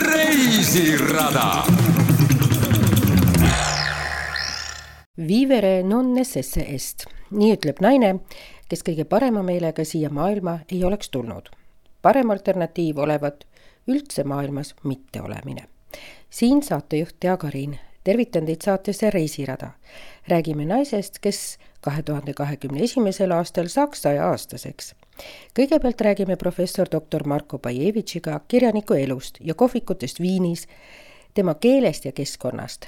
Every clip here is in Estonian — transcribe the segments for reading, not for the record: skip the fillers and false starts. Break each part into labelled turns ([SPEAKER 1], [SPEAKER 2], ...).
[SPEAKER 1] Reisirada.
[SPEAKER 2] Vivere non necesse est. Nii ütleb naine, kes kõige parema meelega siia maailma ei oleks tulnud. Parem alternatiiv olevat üldse maailmas mitte olemine. Siin saatejuht Tea Karin. Tervitan teid saatesse Reisirada. Räägime naisest, kes 2021. aastal saaks 100-aastaseks. Kõigepealt räägime professor dr. Marko Bajevitšiga kirjaniku elust ja kohvikutest Viinis, tema keelest ja keskkonnast.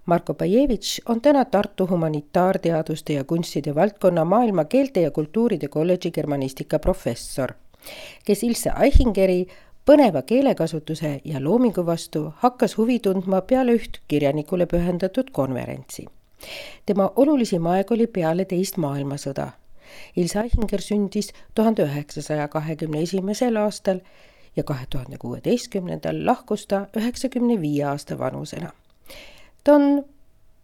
[SPEAKER 2] Marko Bajevitš on täna Tartu humanitaarteaduste ja kunstide valdkonna maailma keelte ja kultuuride kolledži germanistika professor, kes Ilse Aichingeri põneva keelekasutuse ja loomingu vastu hakkas huvi tundma peale üht kirjanikule pühendatud konverentsi. Tema olulisim aeg oli peale teist maailmasõda. Ilse Aichinger sündis 1921. aastal ja 2016. lahkus ta 95 aasta vanusena. Ta on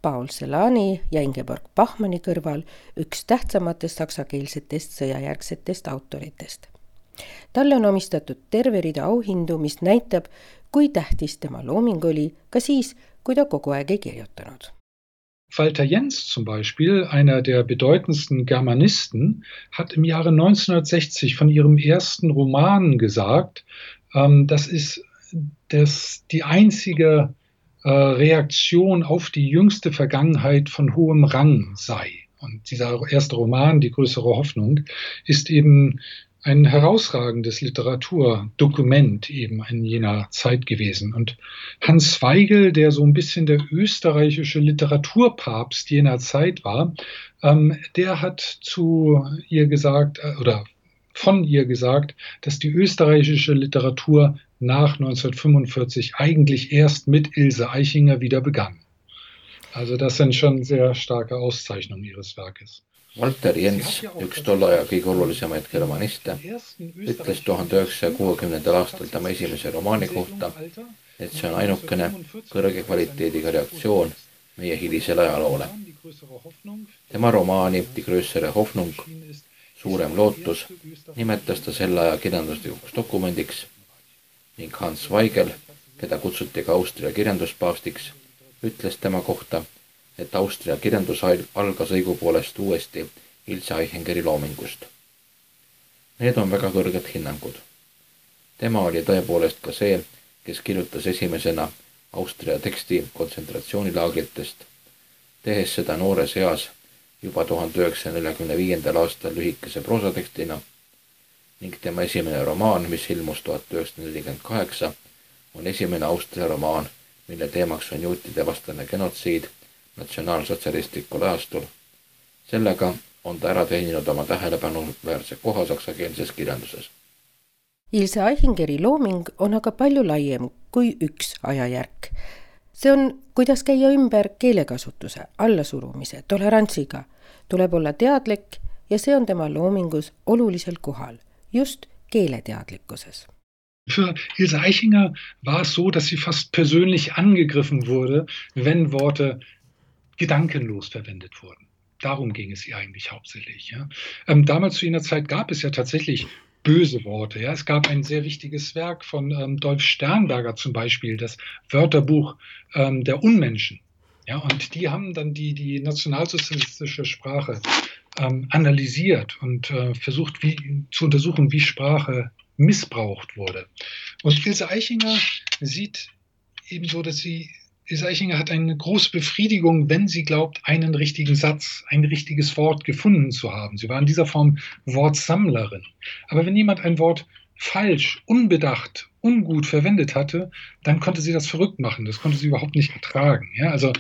[SPEAKER 2] Paul Celani ja Ingeborg Bachmanni kõrval üks tähtsamatest saksakeelsetest sõjajärgsetest autoritest. Talle on omistatud terve rida auhindu, mis näitab, kui tähtis tema looming oli, ka siis, kui ta kogu aeg ei kirjutanud.
[SPEAKER 3] Walter Jens zum Beispiel, einer der bedeutendsten Germanisten, hat im Jahre 1960 von ihrem ersten Roman gesagt, dass es die einzige Reaktion auf die jüngste Vergangenheit von hohem Rang sei. Und dieser erste Roman, Die größere Hoffnung, ist eben ein herausragendes Literaturdokument eben in jener Zeit gewesen. Und Hans Weigel, der so ein bisschen der österreichische Literaturpapst jener Zeit war, der hat zu ihr gesagt, oder von ihr gesagt, dass die österreichische Literatur nach 1945 eigentlich erst mit Ilse Aichinger wieder begann. Also das sind schon sehr starke Auszeichnungen ihres Werkes.
[SPEAKER 4] Walter Jens, üks tolle aja kõige olulisemaid germaniste, ütles 1960. aastal tema esimese romaani kohta, et see on ainukene kõrge kvaliteediga reaktsioon meie hilisele ajaloole. Tema romaani Die größere Hoffnung, suurem lootus, nimetas ta selle aja kirjanduslikuks dokumendiks ning Hans Weigel, keda kutsuti ka Austria kirjanduspaavstiks, ütles tema kohta, et Austria kirjandus algas õigupoolest uuesti Ilse Aichingeri loomingust. Need on väga kõrged hinnangud. Tema oli tõepoolest ka see, kes kirjutas esimesena Austria teksti kontsentratsioonilaagritest, tehes seda noores eas juba 1945. aastal lühikese proosatekstina ning tema esimene romaan, mis ilmus 1948, on esimene Austria romaan, mille teemaks on juutide vastane genotsiid natsionaalsotsialistlikul ajastul. Sellega on ta ära teeninud oma tähelepanuväärse koha saksakeelses kirjanduses.
[SPEAKER 2] Ilse Aichingeri looming on aga palju laiem kui üks ajajärk. See on, kuidas käia ümber keelekasutuse, allasurumise, tolerantsiga. Tuleb olla teadlik ja see on tema loomingus olulisel kohal, just keeleteadlikkuses.
[SPEAKER 3] Für Ilse Aichinger war es so, dass sie fast persönlich angegriffen wurde, wenn Worte gedankenlos verwendet wurden. Darum ging es ihr eigentlich hauptsächlich. Ja. Damals zu jener Zeit gab es ja tatsächlich böse Worte. Ja. Es gab ein sehr wichtiges Werk von Dolf Sternberger zum Beispiel, das Wörterbuch der Unmenschen. Ja, und die haben dann die nationalsozialistische Sprache analysiert und versucht zu untersuchen, wie Sprache missbraucht wurde. Und Ilse Aichinger sieht ebenso, dass Ilse Aichinger hat eine große Befriedigung, wenn sie glaubt, einen richtigen Satz, ein richtiges Wort gefunden zu haben. Sie war in dieser Form Wortsammlerin. Aber wenn jemand ein Wort falsch, unbedacht, ungut verwendet hatte, dann konnte sie das verrückt machen. Das konnte sie überhaupt nicht ertragen. Ja, also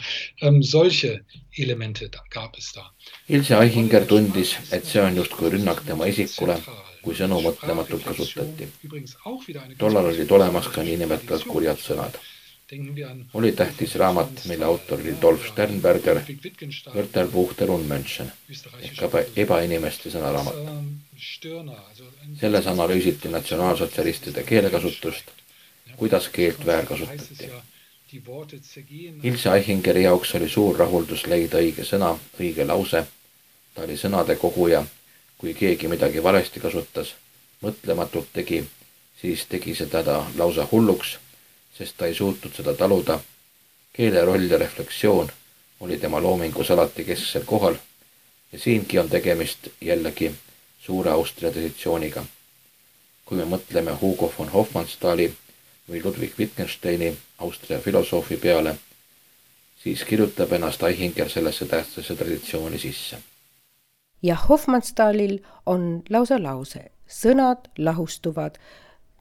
[SPEAKER 3] solche Elemente gab es da.
[SPEAKER 4] Ilse Aichinger tundis, et see on justkui rünnak tema isikule, kui sõnu mõtlematult kasutati. Tollal olid olemas ka niinimetatud kurjad sõnad. Oli tähtis raamat, mille autor oli Dolf Sternberger, Wörterbuch der Unmenschen, ehk ebainimeste sõnaraamat. Selles analüüsiti natsionaalsotsialistide keelekasutust, kuidas keelt väärkasutati. Ilse Aichingeri jaoks oli suur rahuldus leida õige sõna, õige lause. Ta oli sõnade koguja, kui keegi midagi valesti kasutas, mõtlematult tegi siis tegi seda ta lausa hulluks, sest ta ei suutnud seda taluda. Keele roll ja refleksioon oli tema loomingus alati kesksel kohal ja siingi on tegemist jällegi suure Austria traditsiooniga. Kui me mõtleme Hugo von Hofmannsthali või Ludwig Wittgensteini, Austria filosoofi peale, siis kirjutab ennast Aichinger sellesse tähtsasse traditsiooni sisse.
[SPEAKER 2] Ja Hofmannsthalil on lausa lause, sõnad lahustuvad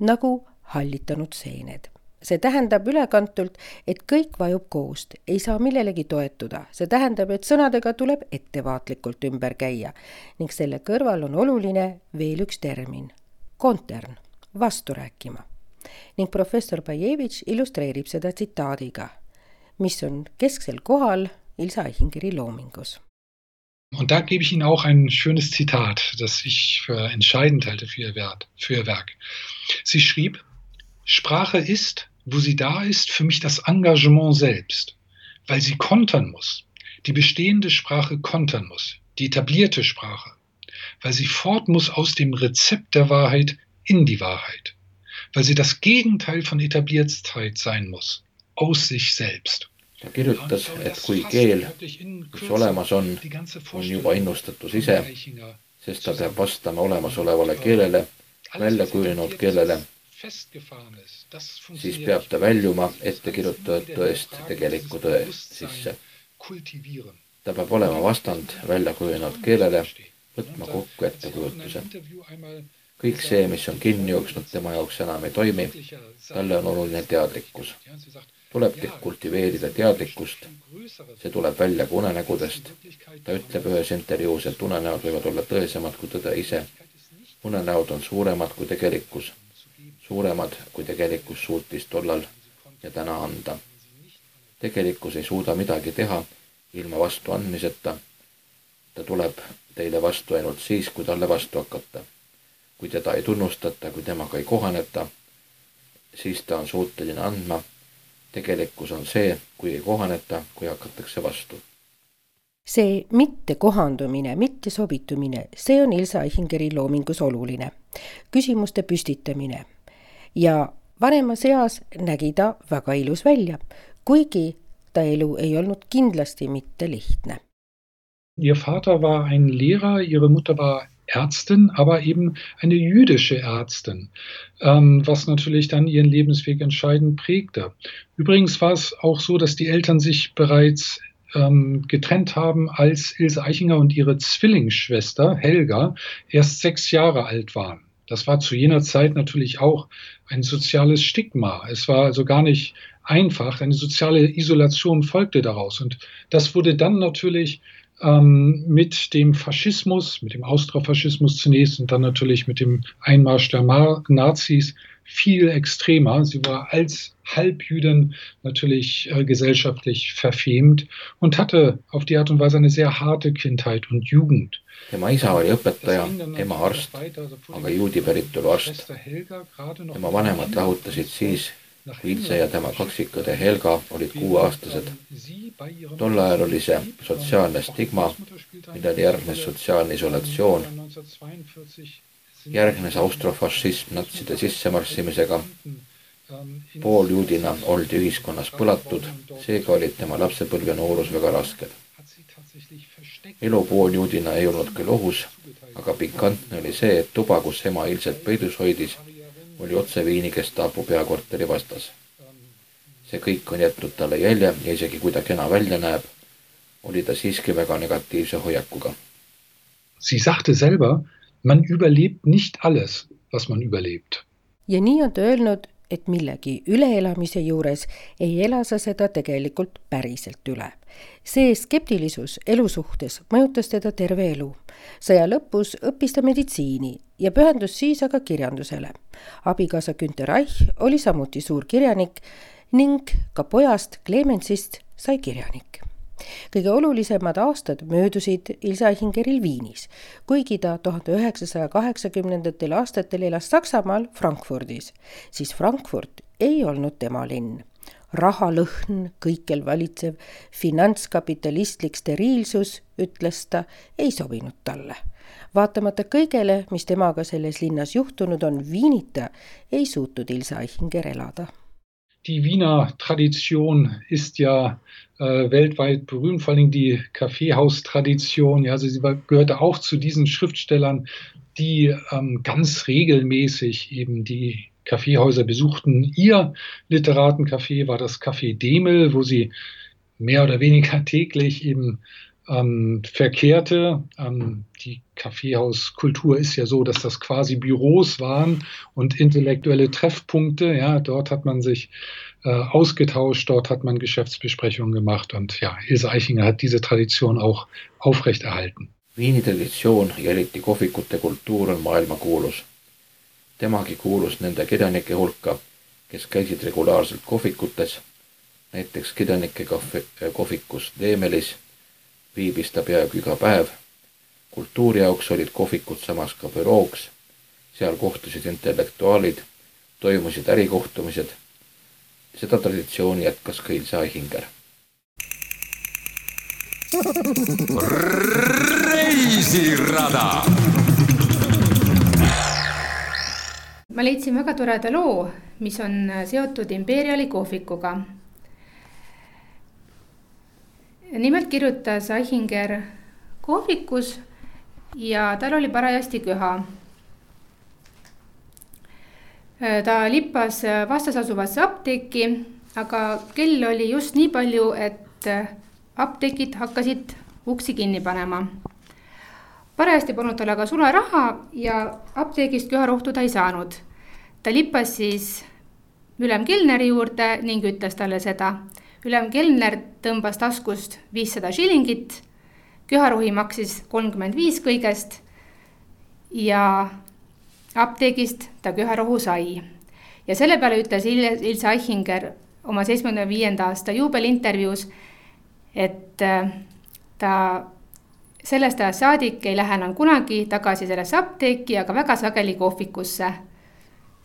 [SPEAKER 2] nagu hallitanud seened. See tähendab ülekantult, et kõik vajub koost, ei saa millelegi toetuda. See tähendab, et sõnadega tuleb ettevaatlikult ümber käia ning selle kõrval on oluline veel üks termin, kontern, vastu rääkima. Ning professor Bajevitš illustreerib seda tsitaadiga, mis on kesksel kohal Ilse Aichingeri loomingus.
[SPEAKER 3] Und da gebe ich Ihnen auch ein schönes Zitat, das ich für entscheidend halte für Ihr Werk. Sie schrieb, Sprache ist, wo sie da ist, für mich das Engagement selbst, weil sie kontern muss, die bestehende Sprache kontern muss, die etablierte Sprache, weil sie fort muss aus dem Rezept der Wahrheit in die Wahrheit, weil sie das Gegenteil von Etabliertheit sein muss, aus sich selbst.
[SPEAKER 4] Ta kirjutas, et kui keel, mis olemas on juba innustatus ise, sest ta peab vastama olemasolevale keelele, välja kujunenud keelele, siis peab ta väljuma ettekirjutatud tõest tegeliku tõe sisse. Ta peab olema vastand välja kujunenud keelele, võtma kokku ettekujutuse. Kõik see, mis on kinni jooksnud tema jaoks enam ei toimi, talle on oluline teadlikkus. Tuleb kultiveerida teadlikkust, see tuleb välja ka unenägudest. Ta ütleb ühes intervjuus, et unenäod võivad olla tõesemad kui tõde ise. Unenäod on suuremad kui tegelikkus, suuremad kui tegelikkus suutis tollal ja täna anda. Tegelikkus ei suuda midagi teha ilma vastu andmiseta. Ta tuleb teile vastu ainult siis, kui talle vastu hakata. Kui teda ei tunnustata, kui temaga ei kohaneta, siis ta on suuteline andma. Tegelikkus on see, kui ei kohaneta, kui hakatakse vastu.
[SPEAKER 2] See mitte kohandumine, mitte sobitumine, see on Ilse Aichingeri loomingus oluline. Küsimuste püstitamine. Ja vanemas eas nägi ta väga ilus välja, kuigi ta elu ei olnud kindlasti mitte lihtne.
[SPEAKER 3] Ihr Vater war ein Lehrer, ihre Mutter war Ärztin, aber eben eine jüdische Ärztin, was natürlich dann ihren Lebensweg entscheidend prägte. Übrigens war es auch so, dass die Eltern sich bereits getrennt haben, als Ilse Aichinger und ihre Zwillingsschwester Helga erst 6 Jahre alt waren. Das war zu jener Zeit natürlich auch ein soziales Stigma. Es war also gar nicht einfach, eine soziale Isolation folgte daraus. Und das wurde dann natürlich mit dem Faschismus, mit dem Austrofaschismus zunächst und dann natürlich mit dem Einmarsch der Nazis viel extremer. Sie war als Halbjüdin natürlich gesellschaftlich verfemt und hatte auf die Art und Weise eine sehr harte Kindheit und Jugend.
[SPEAKER 4] Tema isa oli õpetaja, ema arst, aga juudi päritolu arst. Tema vanemad lahutasid siis, kui Ilse ja tema kaksikõde Helga olid 6-aastased. Tol ajal oli see sotsiaalne stigma, millele järgnes sotsiaalne isolatsioon. Järgnes austrofašism natside sissemarssimisega. Pooljuudina oldi ühiskonnas põlatud, seega olid tema lapsepõlv ja noorus väga rasked. Elu pooljuudina ei olnud küll ohus, aga pikantne oli see, et tuba, kus ema Ilset peidus hoidis, oli otse Viini Gestapo peakorteri vastas. See kõik on jätnud talle jälje ja isegi kui ta kena välja näeb, oli ta siiski väga negatiivse hoiakuga.
[SPEAKER 3] Sie sagte selber, man überlebt nicht alles, was man überlebt.
[SPEAKER 2] Ja nii on ta öelnud, et millegi üleelamise juures ei ela sa seda tegelikult päriselt üle. See skeptilisus elu suhtes mõjutas teda terve elu. Sõja lõpus õppis ta meditsiini ja pühendus siis aga kirjandusele. Abikaasa Günter Reich oli samuti suur kirjanik ning ka pojast Clemensist sai kirjanik. Kõige olulisemad aastad möödusid Ilse Aichingeril Viinis, kuigi ta 1980. aastatel elas Saksamaal Frankfurdis, siis Frankfurt ei olnud tema linn. Rahalõhn, kõikjal valitsev finantskapitalistlik steriilsus, ütles ta, ei sobinud talle. Vaatamata kõigele, mis temaga selles linnas juhtunud on, Wienita ei suutnud Ilse Aichinger elada.
[SPEAKER 3] Die Wiener Tradition ist ja weltweit berühmt, vor allem die Kaffeehaustradition. Ja, also sie gehörte auch zu diesen Schriftstellern, die ganz regelmäßig eben die Kaffeehäuser besuchten. Ihr Literatencafé war das Café Demel, wo sie mehr oder weniger täglich eben verkehrte. Die Kaffeehauskultur ist ja so, dass das quasi Büros waren und intellektuelle Treffpunkte. Ja, dort hat man sich ausgetauscht, dort hat man Geschäftsbesprechungen gemacht und ja, Ilse Aichinger hat diese Tradition auch aufrechterhalten.
[SPEAKER 4] Viini traditsioon ja eriti kohvikute kultuur on maailmakuulus. Temagi kuulus nende kirjanike hulka, kes käisid regulaarselt kohvikutes, näiteks kirjanike kohvikus Demelis viibis ta peaaegu iga päev. Kultuuri jaoks olid kohvikud samas ka bürooks, seal kohtusid intellektuaalid, toimusid ärikohtumised. Seda traditsiooni jätkas ka Ilse Aichinger.
[SPEAKER 1] Reisirada!
[SPEAKER 5] Ma leidsin väga toreda loo, mis on seotud Imperiali kohvikuga. Nimelt kirjutas Aichinger kohvikus ja tal oli parajasti köha. Ta lippas vastas asuvasse apteeki, aga kell oli just nii palju, et apteekid hakkasid uksi kinni panema. Parajasti polnud tal aga sularaha ja apteegist köharohtu ta ei saanud. Ta lippas siis ülem kelneri juurde ning ütles talle seda. Ülem kelner tõmbas taskust 500 šilingit, köharohi maksis 35 kõigest ja apteegist ta köharohu sai. Ja selle peale ütles Ilse Aichinger oma 75. aasta juubelintervjuus, et ta sellest ajast saadik ei lähe enam kunagi tagasi sellesse apteeki, aga väga sageli kohvikusse.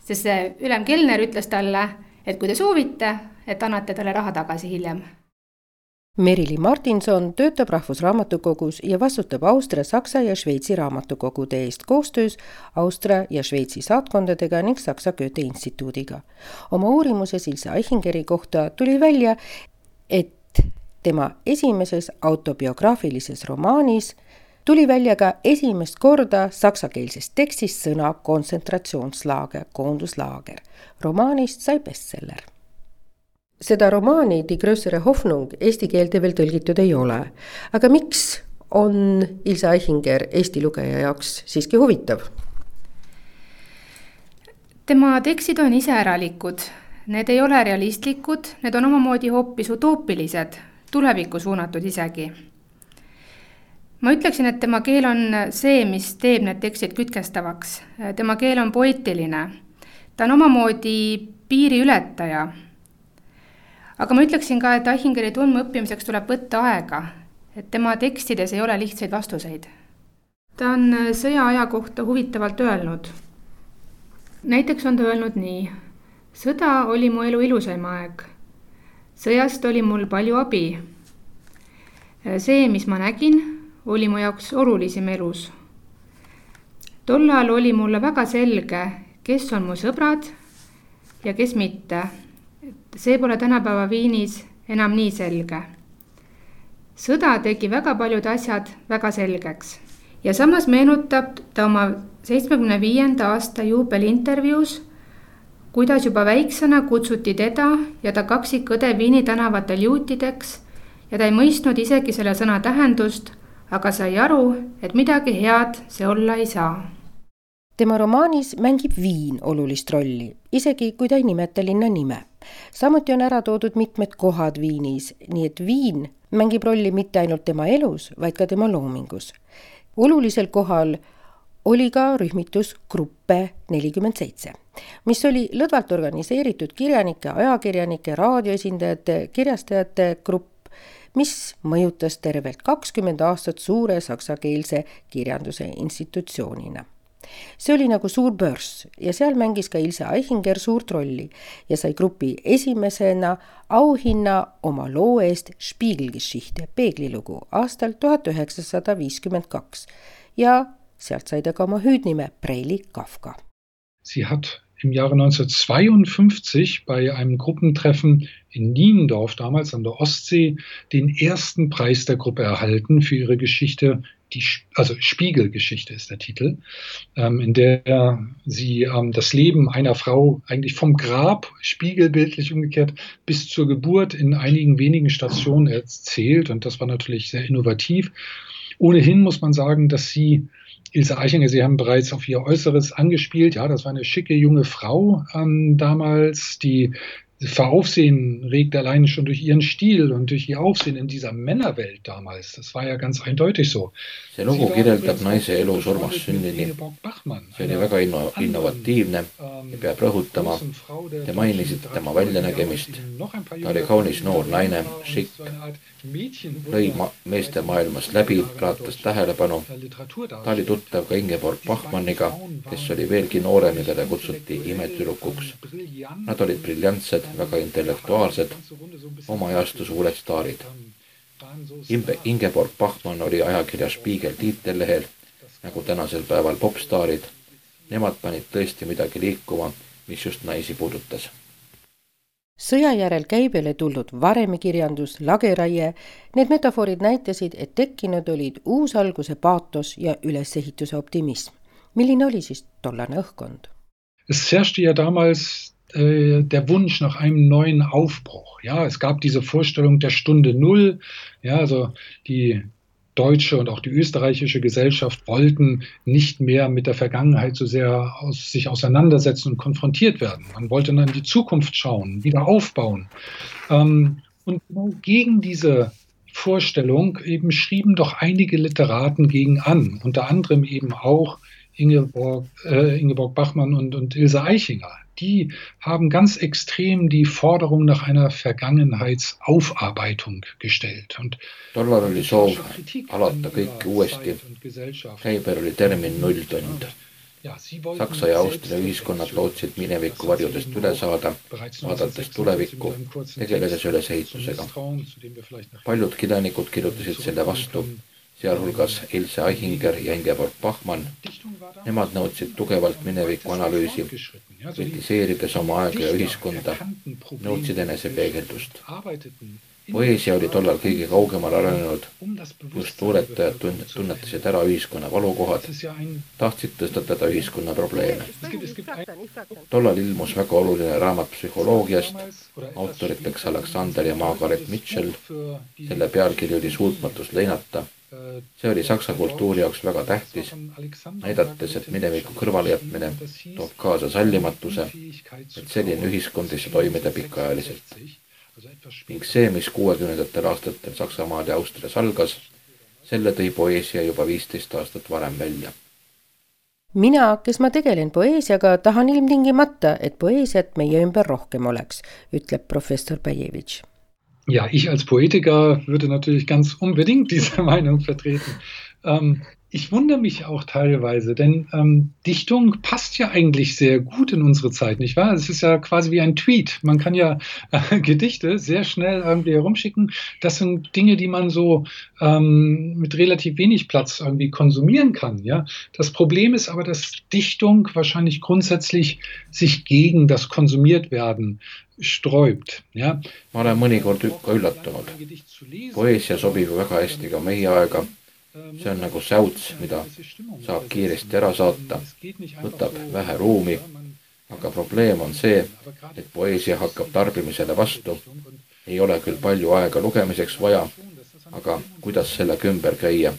[SPEAKER 5] Sest see ülem kelner ütles talle, et kui te soovite, et annate talle raha tagasi hiljem.
[SPEAKER 2] Merili Martinson töötab Rahvusraamatukogus ja vastutab Austria, Saksa ja Šveitsi raamatukogude eest koostöös Austria ja Šveitsi saatkondadega ning Saksa Goethe instituudiga. Oma uurimuses Ilse Aichingeri kohta tuli välja, et tema esimeses autobiograafilises romaanis tuli välja ka esimest korda saksakeelses tekstis sõna kontsentratsioonslaager, koonduslaager. Romaanist sai bestseller. Seda romaani Die größere Hoffnung eesti keelde veel tõlgitud ei ole. Aga miks on Ilse Aichinger Eesti lugeja jaoks siiski huvitav?
[SPEAKER 5] Tema tekstid on iseäralikud. Need ei ole realistlikud, need on omamoodi hoopis utoopilised, tulevikku suunatud isegi. Ma ütleksin, et tema keel on see, mis teeb need tekstid kütkestavaks. Tema keel on poeetiline. Ta on omamoodi piiri ületaja. Aga ma ütleksin ka, et Aichingeri tundma õppimiseks tuleb võtta aega, et tema tekstides ei ole lihtsaid vastuseid. Ta on sõjaaja kohta huvitavalt öelnud. Näiteks on ta öelnud nii. Sõda oli mu elu ilusaim aeg. Sõjast oli mul palju abi. See, mis ma nägin, oli mu jaoks olulisim elus. Tollal oli mulle väga selge, kes on mu sõbrad ja kes mitte. See pole tänapäeva Viinis enam nii selge. Sõda tegi väga paljud asjad väga selgeks. Ja samas meenutab ta oma 75. aasta juubelintervjuus, kuidas juba väiksena kutsuti teda ja ta kaksikõde Viini tänavatel juutideks ja ta ei mõistnud isegi selle sõna tähendust, aga sai aru, et midagi head see olla ei saa.
[SPEAKER 2] Tema romaanis mängib Viin olulist rolli, isegi kui ta ei nimeta linna nime. Samuti on ära toodud mitmed kohad Viinis, nii et Viin mängib rolli mitte ainult tema elus, vaid ka tema loomingus. Olulisel kohal oli ka rühmitus Gruppe 47, mis oli lõdvalt organiseeritud kirjanike, ajakirjanike, raadioesindajate, kirjastajate grupp, mis mõjutas tervelt 20 aastat suure saksakeelse kirjanduse institutsioonina. see oli nagu suur börs ja seal mängis ka Ilse Aichinger suurt rolli ja sai grupi esimesena auhinna oma loo eest Spiegelgeschichte, peeglilugu aastal 1952 ja sealt sai ta ka oma hüüdnime Preili Kafka.
[SPEAKER 3] Sie hat im Jahre 1952 bei einem Gruppentreffen in Niendorf, damals an der Ostsee, den ersten Preis der Gruppe erhalten für ihre Geschichte, also Spiegelgeschichte ist der Titel, in der sie das Leben einer Frau eigentlich vom Grab, spiegelbildlich umgekehrt, bis zur Geburt in einigen wenigen Stationen erzählt. Und das war natürlich sehr innovativ. Ohnehin muss man sagen, dass Ilse Aichinger, Sie haben bereits auf ihr Äußeres angespielt. Ja, das war eine schicke junge Frau damals, die für Aufsehen regt allein schon durch ihren Stil und durch ihr Aufsehen in dieser Männerwelt damals. Das war ja ganz eindeutig so.
[SPEAKER 4] See lugu kirjeldab naise elu surmast sünnini. See oli väga innovatiivne ja peab rõhutama. Te mainisite tema väljanägemist. Ta oli kaunis noor naine, šikk, lõi meeste maailmast läbi, raatas tähelepanu. Ta oli tuttav ka Ingeborg Bachmanniga, kes oli veelgi noorem ja teda kutsuti imetüdrukuks. Nad olid briljantsed, väga intellektuaalsed, oma ajastu suured staarid. Ingeborg Bachmann oli ajakirja Spiegel tiitellehel, nagu tänasel päeval popstaarid. Nemad panid tõesti midagi liikuma, mis just naisi puudutas.
[SPEAKER 2] Sõja järel käibele tulnud varemikirjandus, lageraie, need metafoorid näitasid, et tekkinud olid uusalguse paatos ja ülesehituse optimism. Milline oli siis tollane õhkkond?
[SPEAKER 3] Es herrschte ja damals der Wunsch nach einem neuen Aufbruch. Ja, es gab diese Vorstellung der Stunde Null. Ja, also die deutsche und auch die österreichische Gesellschaft wollten nicht mehr mit der Vergangenheit so sehr sich auseinandersetzen und konfrontiert werden. Man wollte dann in die Zukunft schauen, wieder aufbauen. Und gegen diese Vorstellung eben schrieben doch einige Literaten gegen an, unter anderem eben auch Ingeborg Bachmann und Ilse Aichinger. Die haben ganz extrem die Forderung nach einer Vergangenheitsaufarbeitung gestellt.
[SPEAKER 4] Tollal oli soov alata kõike uuesti. Käibel oli termin nulltund. Saksa ja Austria ühiskonnad lootsid mineviku varjudest üle saada, vaadates tulevikku, tegeledes ülesehitusega. Paljud kirjanikud kirjutasid selle vastu, sealhulgas Ilse Aichinger ja Ingeborg Bachmann. Nemad nõudsid tugevalt mineviku analüüsi, kritiseerides oma aega ja ühiskonda, nõudsid enesepeegeldust. Poeesia oli tollal kõige kaugemal arenenud, kus luuletajad tunnetasid ära ühiskonna valukohad, tahtsid tõstatada ühiskonna probleeme. Tollal ilmus väga oluline raamat psühholoogiast, autoriteks Alexander ja Margaret Mitchell, selle pealkiri oli Suutmatus leinata. See oli saksa kultuuri jaoks väga tähtis, näidates, et mineviku kõrvalejätmine toob kaasa sallimatuse, et selline ühiskond ei saa toimida pikaajaliselt. Ning see, mis 60. aastatel Saksamaal ja Austrias algas, selle tõi poeesia juba 15 aastat varem välja.
[SPEAKER 2] Mina, kes ma tegelen poeesiaga, tahan ilmtingimata, et poeesiat meie ümber rohkem oleks, ütleb professor Bajevitš.
[SPEAKER 3] Ja, ich als Poetiker würde natürlich ganz unbedingt diese Meinung vertreten. Ich wundere mich auch teilweise, denn Dichtung passt ja eigentlich sehr gut in unsere Zeit, nicht wahr? Es ist ja quasi wie ein Tweet. Man kann ja Gedichte sehr schnell irgendwie herumschicken. Das sind Dinge, die man so mit relativ wenig Platz irgendwie konsumieren kann. Ja? Das Problem ist aber, dass Dichtung wahrscheinlich grundsätzlich sich gegen das Konsumiertwerden sträubt. Ja?
[SPEAKER 4] Ma olen mõnikord ka üllatunud. Poeesia sobib väga hästi ka meie aega. See on nagu säuts, mida saab kiiresti ära saata, võtab vähe ruumi, aga probleem on see, et poeesia hakkab tarbimisele vastu. Ei ole küll palju aega lugemiseks vaja, aga kuidas sellega ümber käia?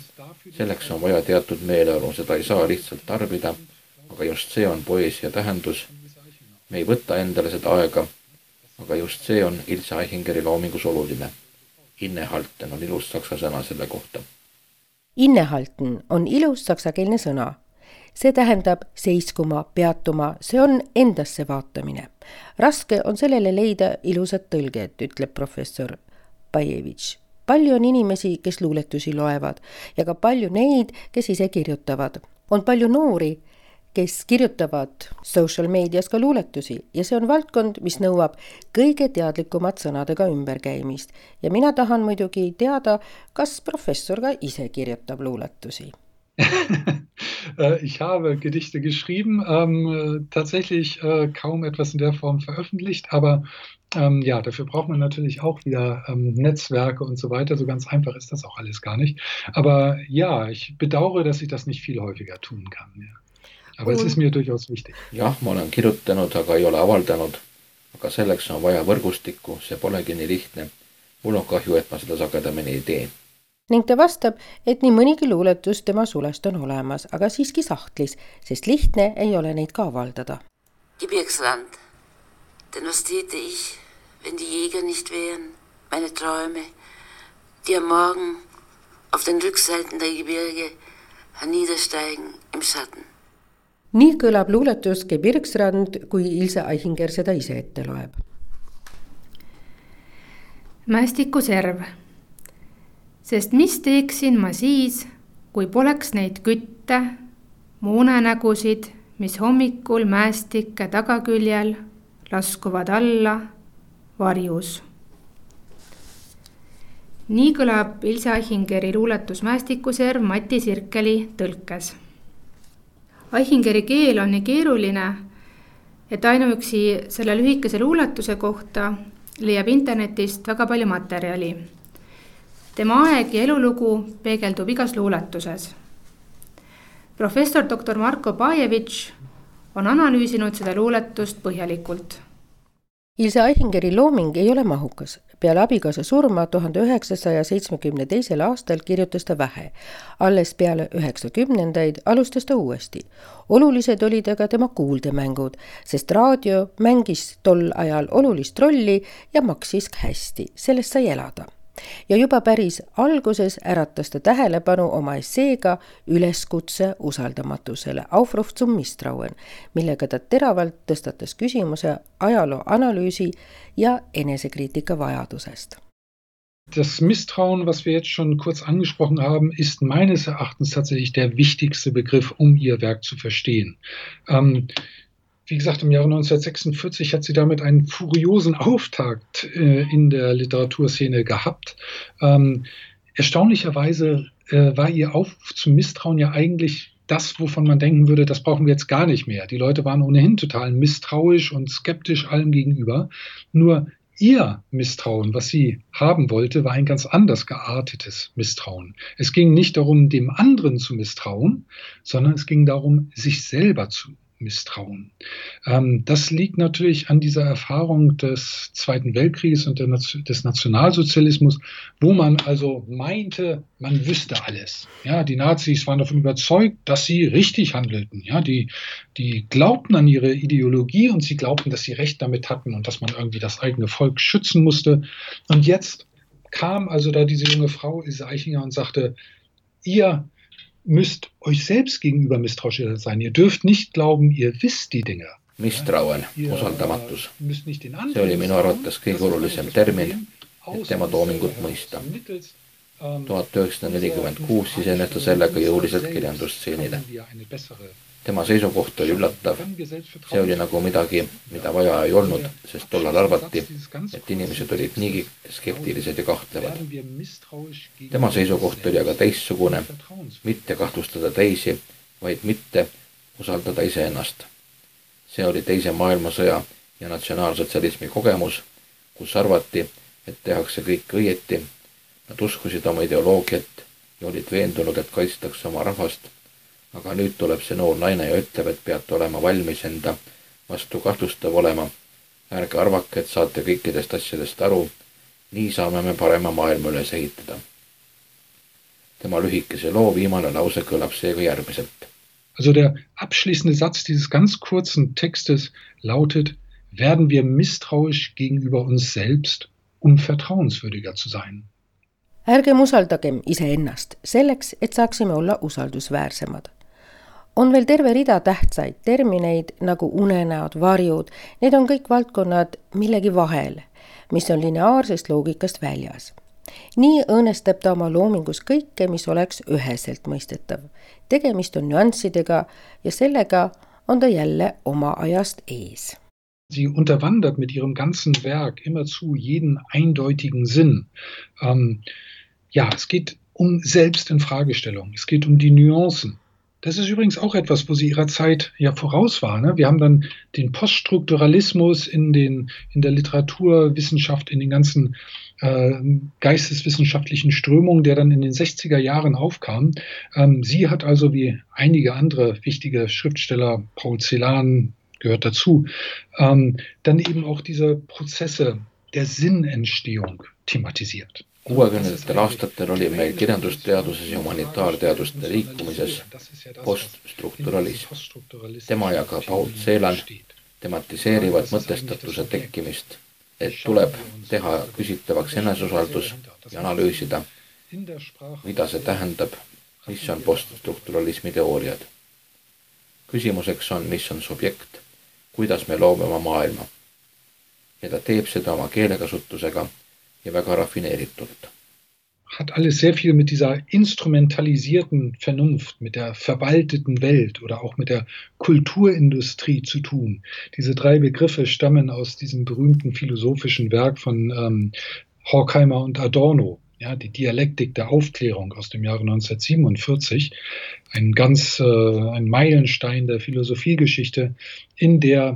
[SPEAKER 4] Selleks on vaja teatud meeleolu, seda ei saa lihtsalt tarbida, aga just see on poeesia tähendus. Me ei võta endale seda aega, aga just see on Ilse Aichingeri loomingus oluline. Innehalten on ilus saksa sõna selle kohta.
[SPEAKER 2] Innehalten on ilus saksakeelne sõna. See tähendab seiskuma, peatuma, see on endasse vaatamine. Raske on sellele leida ilusat tõlget, ütleb professor Bajevitš. Palju on inimesi, kes luuletusi loevad ja ka palju neid, kes ise kirjutavad. On palju noori, kes kirjutavad social meedias ka luuletusi ja see on valdkond, mis nõuab kõige teadlikumat sõnadega ümberkäimist. Ja mina tahan muidugi teada, kas professor ka ise kirjutab luuletusi.
[SPEAKER 3] Ich habe Gedichte geschrieben, tatsächlich kaum etwas in der Form veröffentlicht, aber ja, dafür braucht man natürlich auch wieder Netzwerke und so weiter. So ganz einfach ist das auch alles gar nicht. Aber ja, ich bedauere, dass ich das nicht viel häufiger tun kann. Ja. Aber es ist mir durchaus wichtig.
[SPEAKER 4] Jah, ma olen kirjutanud, aga ei ole avaldanud. Aga selleks on vaja võrgustikku, see polegi nii lihtne. Mul on kahju, et ma seda sagedamini ei tee.
[SPEAKER 2] Ning ta vastab, et nii mõnigi luuletus tema sulest on olemas, aga siiski sahtlis, sest lihtne ei ole neid ka avaldada.
[SPEAKER 6] Gebirgsland, denn was täte ich, wenn die Jäger nicht wären, meine Träume, die am Morgen auf den Rückseiten der Gebirge herniedersteigen im Schatten.
[SPEAKER 2] Nii kõlab luuletus Gebirgsrand, kui Ilse Aichinger seda ise ette loeb.
[SPEAKER 5] Mästikuserv. Sest mis teeksin ma siis, kui poleks neid kütte, muunenägusid, mis hommikul mäestike tagaküljel laskuvad alla varjus. Nii kõlab Ilse Aichingeri luuletus Mästikuserv Mati Sirkeli tõlkes. Aichingeri keel on nii keeruline, et ainuüksi selle lühikese luuletuse kohta leiab internetist väga palju materjali. Tema aeg ja elulugu peegeldub igas luuletuses. Professor Dr. Marko Bajevitš on analüüsinud seda luuletust põhjalikult.
[SPEAKER 2] Ilse Aichingeri looming ei ole mahukas. Peale abikaasa surma 1972. aastal kirjutas ta vähe. Alles peale 90-ndaid alustas ta uuesti. Olulised olid aga tema kuuldemängud, sest raadio mängis tol ajal olulist rolli ja maksis hästi. Sellest sai elada. Ja juba päris alguses äratas ta tähelepanu oma esseega üleskutse usaldamatusele Aufruf zum Misstrauen, millega ta teravalt tõstatas küsimuse ajaloo analüüsi ja enesekriitika vajadusest.
[SPEAKER 3] Das Misstrauen, was wir jetzt schon kurz angesprochen haben, ist meines Erachtens tatsächlich der wichtigste Begriff, um ihr Werk zu verstehen. Wie gesagt, im Jahre 1946 hat sie damit einen furiosen Auftakt in der Literaturszene gehabt. Erstaunlicherweise war ihr Aufruf zum Misstrauen ja eigentlich das, wovon man denken würde, das brauchen wir jetzt gar nicht mehr. Die Leute waren ohnehin total misstrauisch und skeptisch allem gegenüber. Nur ihr Misstrauen, was sie haben wollte, war ein ganz anders geartetes Misstrauen. Es ging nicht darum, dem anderen zu misstrauen, sondern es ging darum, sich selber zu misstrauen. Das liegt natürlich an dieser Erfahrung des Zweiten Weltkrieges und des Nationalsozialismus, wo man also meinte, man wüsste alles. Ja, die Nazis waren davon überzeugt, dass sie richtig handelten. Ja, die glaubten an ihre Ideologie und sie glaubten, dass sie Recht damit hatten und dass man irgendwie das eigene Volk schützen musste. Und jetzt kam also da diese junge Frau, Ilse Aichinger, und sagte, ihr müsst euch selbst gegenüber misstrauisch sein. Ihr dürft nicht glauben, ihr wisst die Dinge.
[SPEAKER 4] Misstrauen, usaldamatus. See oli minu arvates kõige olulisem termin, et tema toomingut mõista. 1946 sisenes ta sellega jõuliselt kirjandusstseenile. Tema seisukoht oli üllatav. See oli nagu midagi, mida vaja ei olnud, sest tollal arvati, et inimesed olid niigi skeptilised ja kahtlevad. Tema seisukoht oli aga teistsugune, mitte kahtlustada teisi, vaid mitte usaldada iseennast. See oli teise maailmasõja ja natsionaalsotsialismi kogemus, kus arvati, et tehakse kõik õieti. Nad uskusid oma ideoloogiat ja olid veendunud, et kaitstakse oma rahvast. Aga nüüd tuleb see noor naine ja ütleb, et peate olema valmis enda vastu kahtlustav olema. Ärge arvake, et saate kõikidest asjadest aru. Nii saame me parema maailma üles ehitada. Tema lühikese loo viimane lause kõlab seega järgmiselt.
[SPEAKER 3] Also der abschließende Satz dieses ganz kurzen Textes lautet, werden wir misstrauisch gegenüber uns selbst, vertrauenswürdiger zu sein.
[SPEAKER 2] Ärgem usaldagem iseennast selleks, et saaksime olla usaldusväärsemad. On veel terve rida tähtsaid termineid nagu unenäod, varjud. Need on kõik valdkonnad millegi vahel, mis on lineaarsest loogikast väljas. Nii õõnestab ta oma loomingus kõike, mis oleks üheselt mõistetav. Tegemist on nüanssidega ja sellega on ta jälle oma ajast ees.
[SPEAKER 3] Sie unterwandert mit ihrem ganzen Werk immerzu jeden eindeutigen Sinn. Es geht um Selbstinfragestellung, es geht um die Nuancen. Das ist übrigens auch etwas, wo sie ihrer Zeit ja voraus war. Ne? Wir haben dann den Poststrukturalismus in der Literaturwissenschaft, in den ganzen geisteswissenschaftlichen Strömungen, der dann in den 60er Jahren aufkam. Sie hat also wie einige andere wichtige Schriftsteller, Paul Celan gehört dazu, dann eben auch diese Prozesse der Sinnentstehung thematisiert.
[SPEAKER 4] 60. aastatel oli meil kirjandusteaduses ja humanitaarteaduste liikumises poststrukturalism. Tema ja ka Paul Celan tematiseerivad mõtestatuse tekkimist, et tuleb teha küsitavaks eneseusaldus ja analüüsida, mida see tähendab, mis on poststrukturalismi teooriad. Küsimuseks on, mis on subjekt, kuidas me loome oma maailma. Ja ta teeb seda oma keelekasutusega ja väga raffineeritult.
[SPEAKER 3] Hat alles sehr viel mit dieser instrumentalisierten Vernunft, mit der verwalteten Welt oder auch mit der Kulturindustrie zu tun. Diese 3 Begriffe stammen aus diesem berühmten philosophischen Werk von Horkheimer und Adorno, ja, die Dialektik der Aufklärung aus dem Jahre 1947, ein Meilenstein der Philosophiegeschichte, in der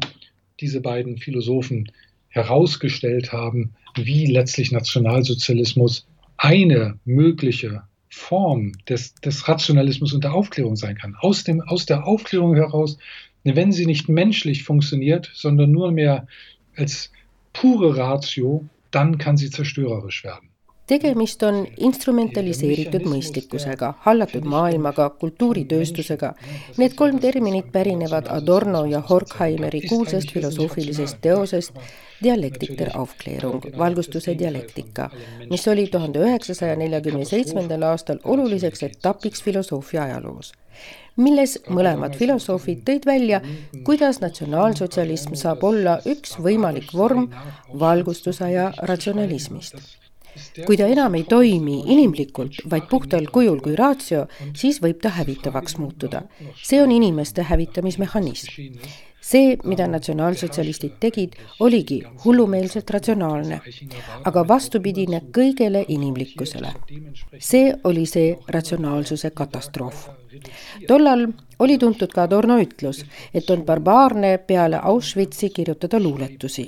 [SPEAKER 3] diese beiden Philosophen herausgestellt haben, wie letztlich Nationalsozialismus eine mögliche Form des Rationalismus und der Aufklärung sein kann. Aus der Aufklärung heraus, wenn sie nicht menschlich funktioniert, sondern nur mehr als pure Ratio, dann kann sie zerstörerisch werden.
[SPEAKER 2] Tegemist on instrumentaliseeritud mõistlikkusega, hallatud maailmaga, kultuuritööstusega. Need 3 terminit pärinevad Adorno ja Horkheimeri kuulsast filosoofilisest teosest Dialektik der Aufklärung, valgustuse dialektika, mis oli 1947. aastal oluliseks etapiks filosoofia ajaloos, milles mõlemad filosoofid tõid välja, kuidas natsionaalsotsialism saab olla üks võimalik vorm valgustusaja ratsionalismist. Kui ta enam ei toimi inimlikult, vaid puhtal kujul kui ratio, siis võib ta hävitavaks muutuda. See on inimeste hävitamismehhanism. See, mida natsionaalsotsialistid tegid, oligi hullumeelselt ratsionaalne, aga vastupidine kõigele inimlikkusele. See oli see ratsionaalsuse katastroof. Tollal oli tuntud ka Adorno ütlus, et on barbaarne peale Auschwitzi kirjutada luuletusi.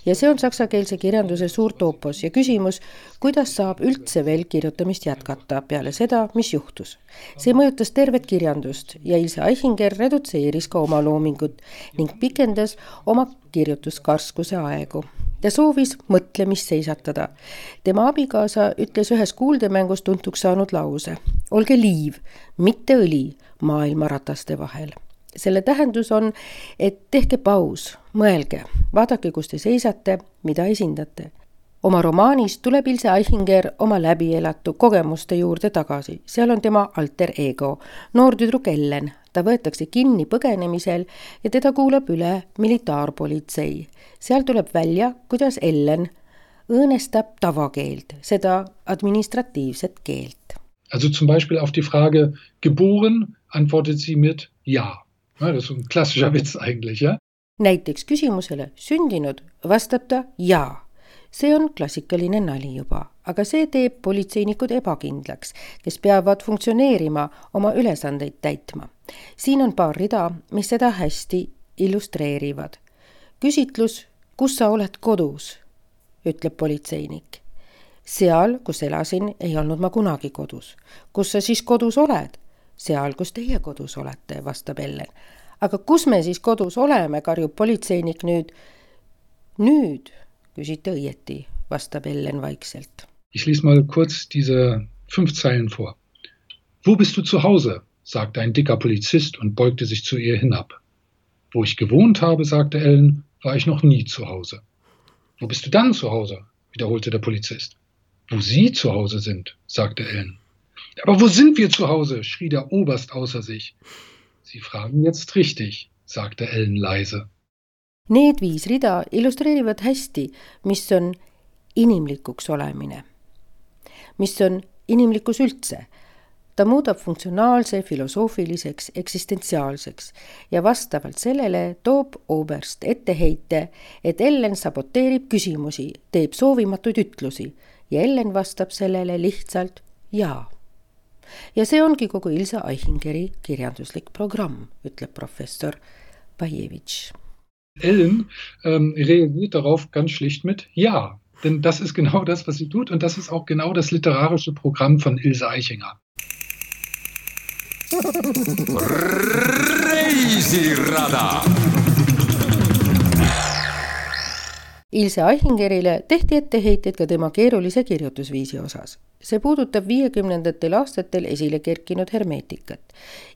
[SPEAKER 2] Ja see on saksakeelse kirjanduse suur toopos ja küsimus, kuidas saab üldse veel kirjutamist jätkata peale seda, mis juhtus. See mõjutas tervet kirjandust ja Ilse Aichinger redutseeris ka oma loomingut ning pikendas oma kirjutuskarskuse aegu. Ta soovis mõtlemist seisatada. Tema abikaasa ütles ühes kuuldemängus tuntuks saanud lause: olge liiv, mitte õli maailmarataste vahel. Selle tähendus on, et tehke paus, mõelge, vaadake, kus te seisate, mida esindate. Oma romaanis tuleb Ilse Aichinger oma läbielatu kogemuste juurde tagasi. Seal on tema alter ego, noor tüdruk Ellen. Ta võetakse kinni põgenemisel ja teda kuulab üle militaarpolitsei. Seal tuleb välja, kuidas Ellen õõnestab tavakeelt, seda administratiivset keelt.
[SPEAKER 3] Also zum Beispiel auf die Frage geboren antwortet sie mit ja. Das ist ein klassischer Witz eigentlich, ja?
[SPEAKER 2] Näiteks küsimusele sündinud vastab ta jaa. See on klassikaline nali juba, aga see teeb politseinikud ebakindlaks, kes peavad funktsioneerima oma ülesandeid täitma. Siin on paar rida, mis seda hästi illustreerivad. Küsitlus, kus sa oled kodus, ütleb politseinik. Seal, kus elasin, ei olnud ma kunagi kodus. Kus sa siis kodus oled? Seal, kus teie kodus olete, vastab Ellen. Aga kus me siis kodus oleme, karjub politseinik nüüd. Nüüd, küsite õieti, vastab Ellen vaikselt.
[SPEAKER 3] Ich lese mal kurz diese 5 Zeilen vor. Wo bist du zu Hause? Sagte ein dicker Polizist und beugte sich zu ihr hinab. Wo ich gewohnt habe, sagte Ellen, war ich noch nie zu Hause. Wo bist du dann zu Hause? Wiederholte der Polizist. Wo Sie zu Hause sind, sagte Ellen. Aber wo sind wir zu Hause? Schrie der Oberst außer sich. Sie fragen jetzt richtig, sagte Ellen leise.
[SPEAKER 2] Need 5 rida illustreerivad hästi, mis on inimlikuks olemine. mis on inimlikkus üldse. Ta muudab funktsionaalse filosoofiliseks eksistentsiaalseks ja vastavalt sellele toob Oberst etteheite, et Ellen saboteerib küsimusi, teeb soovimatuid ütlusi ja Ellen vastab sellele lihtsalt jaa. Ja see ongi kogu Ilse Aihingeri kirjanduslik programm, ütleb professor Bajevitš.
[SPEAKER 3] Ellen reagiert darauf ganz schlicht mit ja, denn das ist genau das, was sie tut und das ist auch genau das literarische Programm von Ilse Aichinger.
[SPEAKER 1] Reisirada.
[SPEAKER 2] Ilse Aihingerile tehti etteheited ka tema keerulise kirjutusviisi osas. See puudutab 50. aastatel esile kerkinud hermeetikat.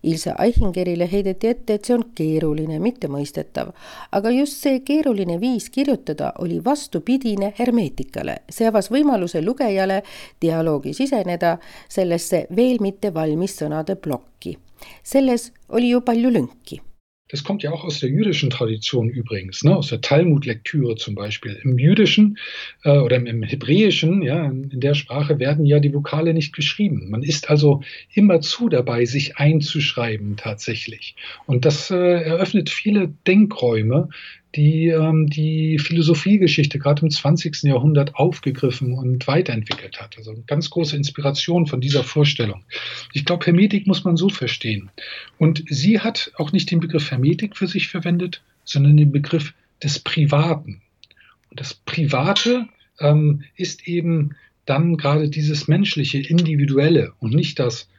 [SPEAKER 2] Ilse Aihingerile heideti ette, et see on keeruline, mitte mõistetav, aga just see keeruline viis kirjutada oli vastupidine hermeetikale. See avas võimaluse lugejale dialoogi siseneda sellesse veel mitte valmis sõnade plokki. Selles oli ju palju lünki.
[SPEAKER 3] Das kommt ja auch aus der jüdischen Tradition übrigens, ne? Aus der Talmud-Lektüre zum Beispiel. Im Jüdischen oder im Hebräischen, ja, in der Sprache werden ja die Vokale nicht geschrieben. Man ist also immerzu dabei, sich einzuschreiben tatsächlich. Und das eröffnet viele Denkräume, die die Philosophiegeschichte gerade im 20. Jahrhundert aufgegriffen und weiterentwickelt hat. Also eine ganz große Inspiration von dieser Vorstellung. Ich glaube, Hermetik muss man so verstehen. Und sie hat auch nicht den Begriff Hermetik für sich verwendet, sondern den Begriff des Privaten. Und das Private ist eben dann gerade dieses menschliche, individuelle und nicht das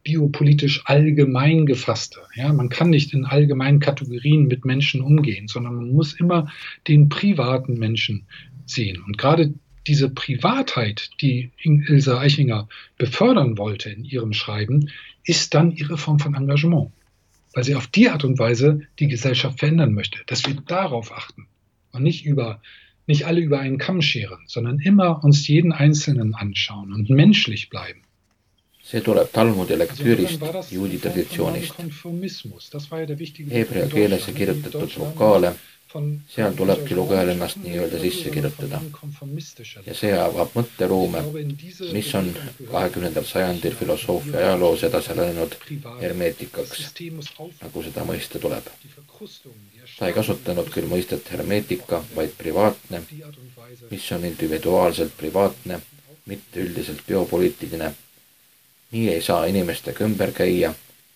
[SPEAKER 3] biopolitisch allgemein gefasste. Ja, man kann nicht in allgemeinen Kategorien mit Menschen umgehen, sondern man muss immer den privaten Menschen sehen. Und gerade diese Privatheit, die Ilse Aichinger befördern wollte in ihrem Schreiben, ist dann ihre Form von Engagement, weil sie auf die Art und Weise die Gesellschaft verändern möchte, dass wir darauf achten und nicht alle über einen Kamm scheren, sondern immer uns jeden Einzelnen anschauen und menschlich bleiben.
[SPEAKER 4] See tuleb Talmudi lektüürist juudi traditsioonist. Heebrea keeles kirjutatud vokaale, seal tulebki lugejal ennast nii-öelda sisse kirjutada. Ja see avab mõtteruume, mis on 20. sajandil filosoofia ajaloos edasi läinud hermeetikaks, nagu seda mõista tuleb. Ta ei kasutanud küll mõistet hermeetika, vaid privaatne, mis on individuaalselt privaatne, mitte üldiselt biopoliitiline. Nii ei saa inimestega ümber käia,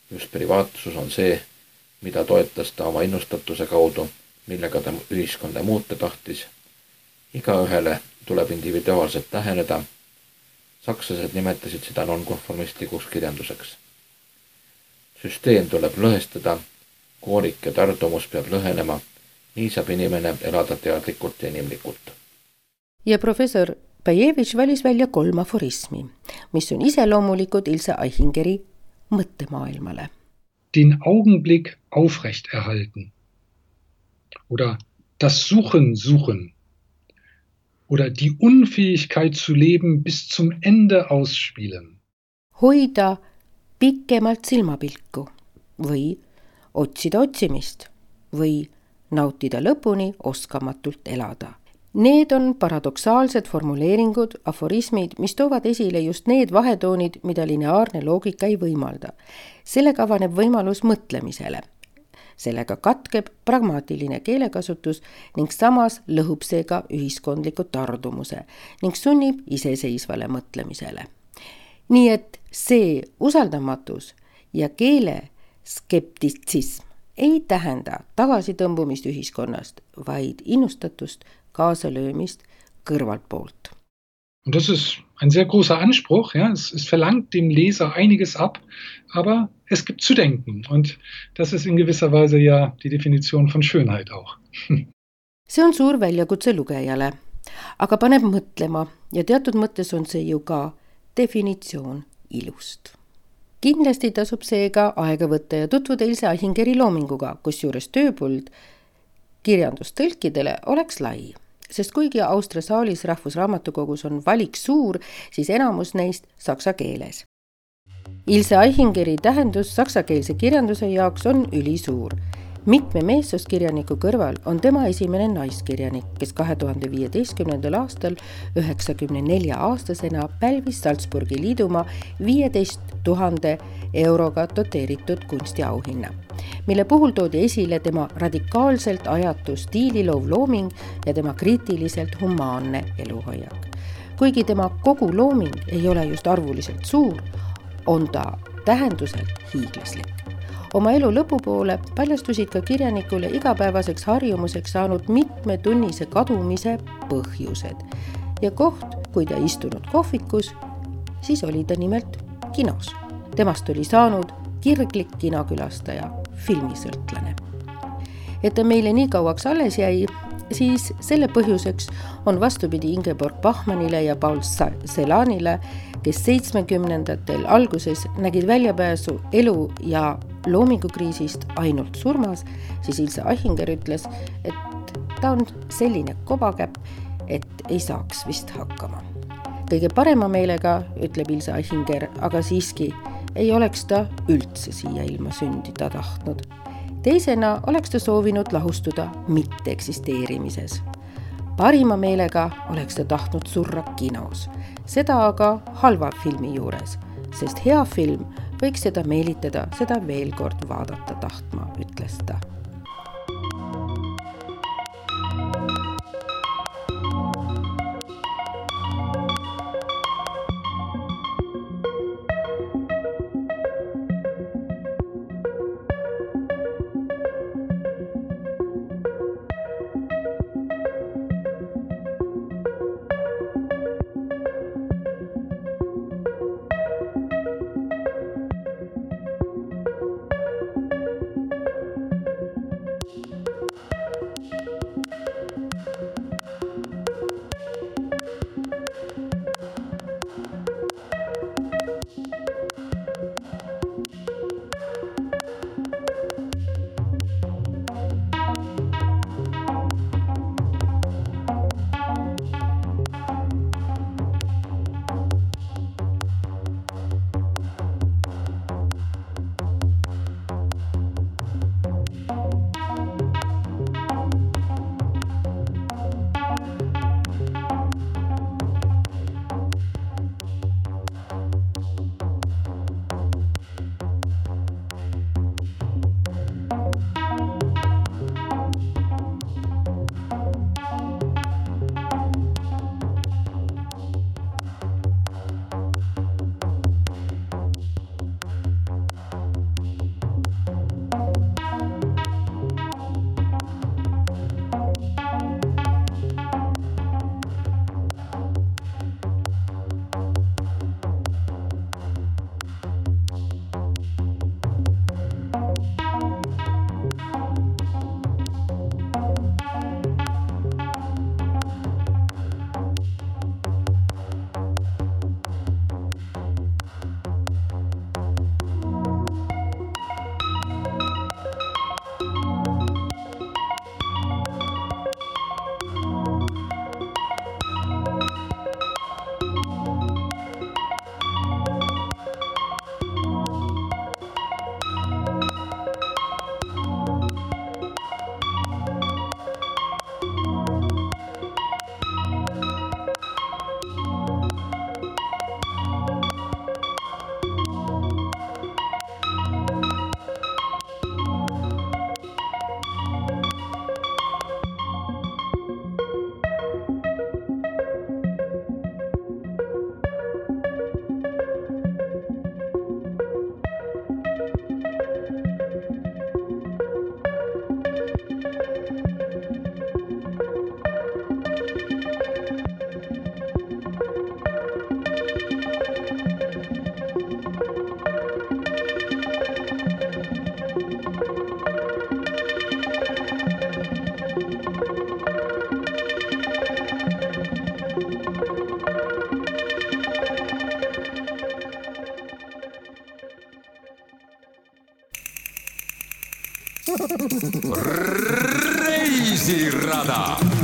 [SPEAKER 4] just privaatsus on see, mida toetas ta oma innustatuse kaudu, millega ta ühiskonda muuta tahtis. Igaühele tuleb individuaalselt läheneda. Sakslased nimetasid seda nonkonformistlikuks kirjanduseks. Süsteem tuleb lõhestada, koorik ja tardumus peab lõhenema, nii saab inimene elada teadlikult ja inimlikult.
[SPEAKER 2] Ja professor Bajevitš valis välja 3 aforismi, mis on iseloomulikud Ilse Aihingeri mõttemaailmale.
[SPEAKER 3] Den Augenblick aufrecht erhalten. Oder das suchen. Oder die Unfähigkeit zu leben bis zum Ende ausspielen.
[SPEAKER 2] Hoida pikemalt silmapilku või otsida otsimist või nautida lõpuni oskamatult elada. Need on paradoksaalsed formuleeringud, aforismid, mis toovad esile just need vahetoonid, mida lineaarne loogika ei võimalda. Sellega avaneb võimalus mõtlemisele. Sellega katkeb pragmaatiline keelekasutus ning samas lõhub seega ühiskondliku tardumuse ning sunnib iseseisvale mõtlemisele. Nii et see usaldamatus ja keele skeptitsism ei tähenda tagasitõmbumist ühiskonnast, vaid innustatust kaasalöömist kõrvalt poolt.
[SPEAKER 3] Und das ist ein sehr großer Anspruch. Ja? Es verlangt dem Leser einiges ab, aber es gibt zu denken. Und das ist in gewisser Weise ja die Definition von Schönheit auch.
[SPEAKER 2] See on suur väljakutse lugejale, aga paneb mõtlema ja teatud mõttes on see ju ka definitsioon ilust. Kindlasti tasub seega aega võtta ja tutvuda Ilse Aihingeri loominguga, kusjuures tööpuld kirjandustõlkidele oleks lai. Sest kuigi Austria saalis Rahvusraamatukogus on valik suur, siis enamus neist saksa keeles. Ilse Aihingeri tähendus saksakeelse kirjanduse jaoks on ülisuur. Mitme meessuskirjaniku kõrval on tema esimene naiskirjanik, kes 2015. aastal 94-aastasena pälvis Salzburgi liidumaa 15 000 euroga doteeritud kunstiauhinna, mille puhul toodi esile tema radikaalselt ajatu stiililoov looming ja tema kriitiliselt humaanne eluhoiak. Kuigi tema kogu looming ei ole just arvuliselt suur, on ta tähenduselt hiiglaslik. Oma elu lõpupoole paljastusid ka kirjanikule igapäevaseks harjumuseks saanud mitmetunnise kadumise põhjused. Ja koht, kui ta istunud kohvikus, siis oli ta nimelt kinos. Temast oli saanud kirglik kinokülastaja, filmisõltlane. Et ta meile nii kauaks alles jäi, siis selle põhjuseks on vastupidi Ingeborg Bachmannile ja Paul Celanile, kes 70-ndatel alguses nägid väljapääsu elu- ja loomingukriisist ainult surmas, siis Ilse Aichinger ütles, et ta on selline kobakäpp, et ei saaks vist hakkama. Kõige parema meelega, ütleb Ilse Aichinger, aga siiski ei oleks ta üldse siia ilma sündida tahtnud. Teisena oleks ta soovinud lahustuda mitte eksisteerimises. Parima meelega oleks ta tahtnud surra kinos, seda aga halva filmi juures, sest hea film võiks seda meelitada, seda veel kord vaadata tahtma, ütles ta.
[SPEAKER 1] Reisirada.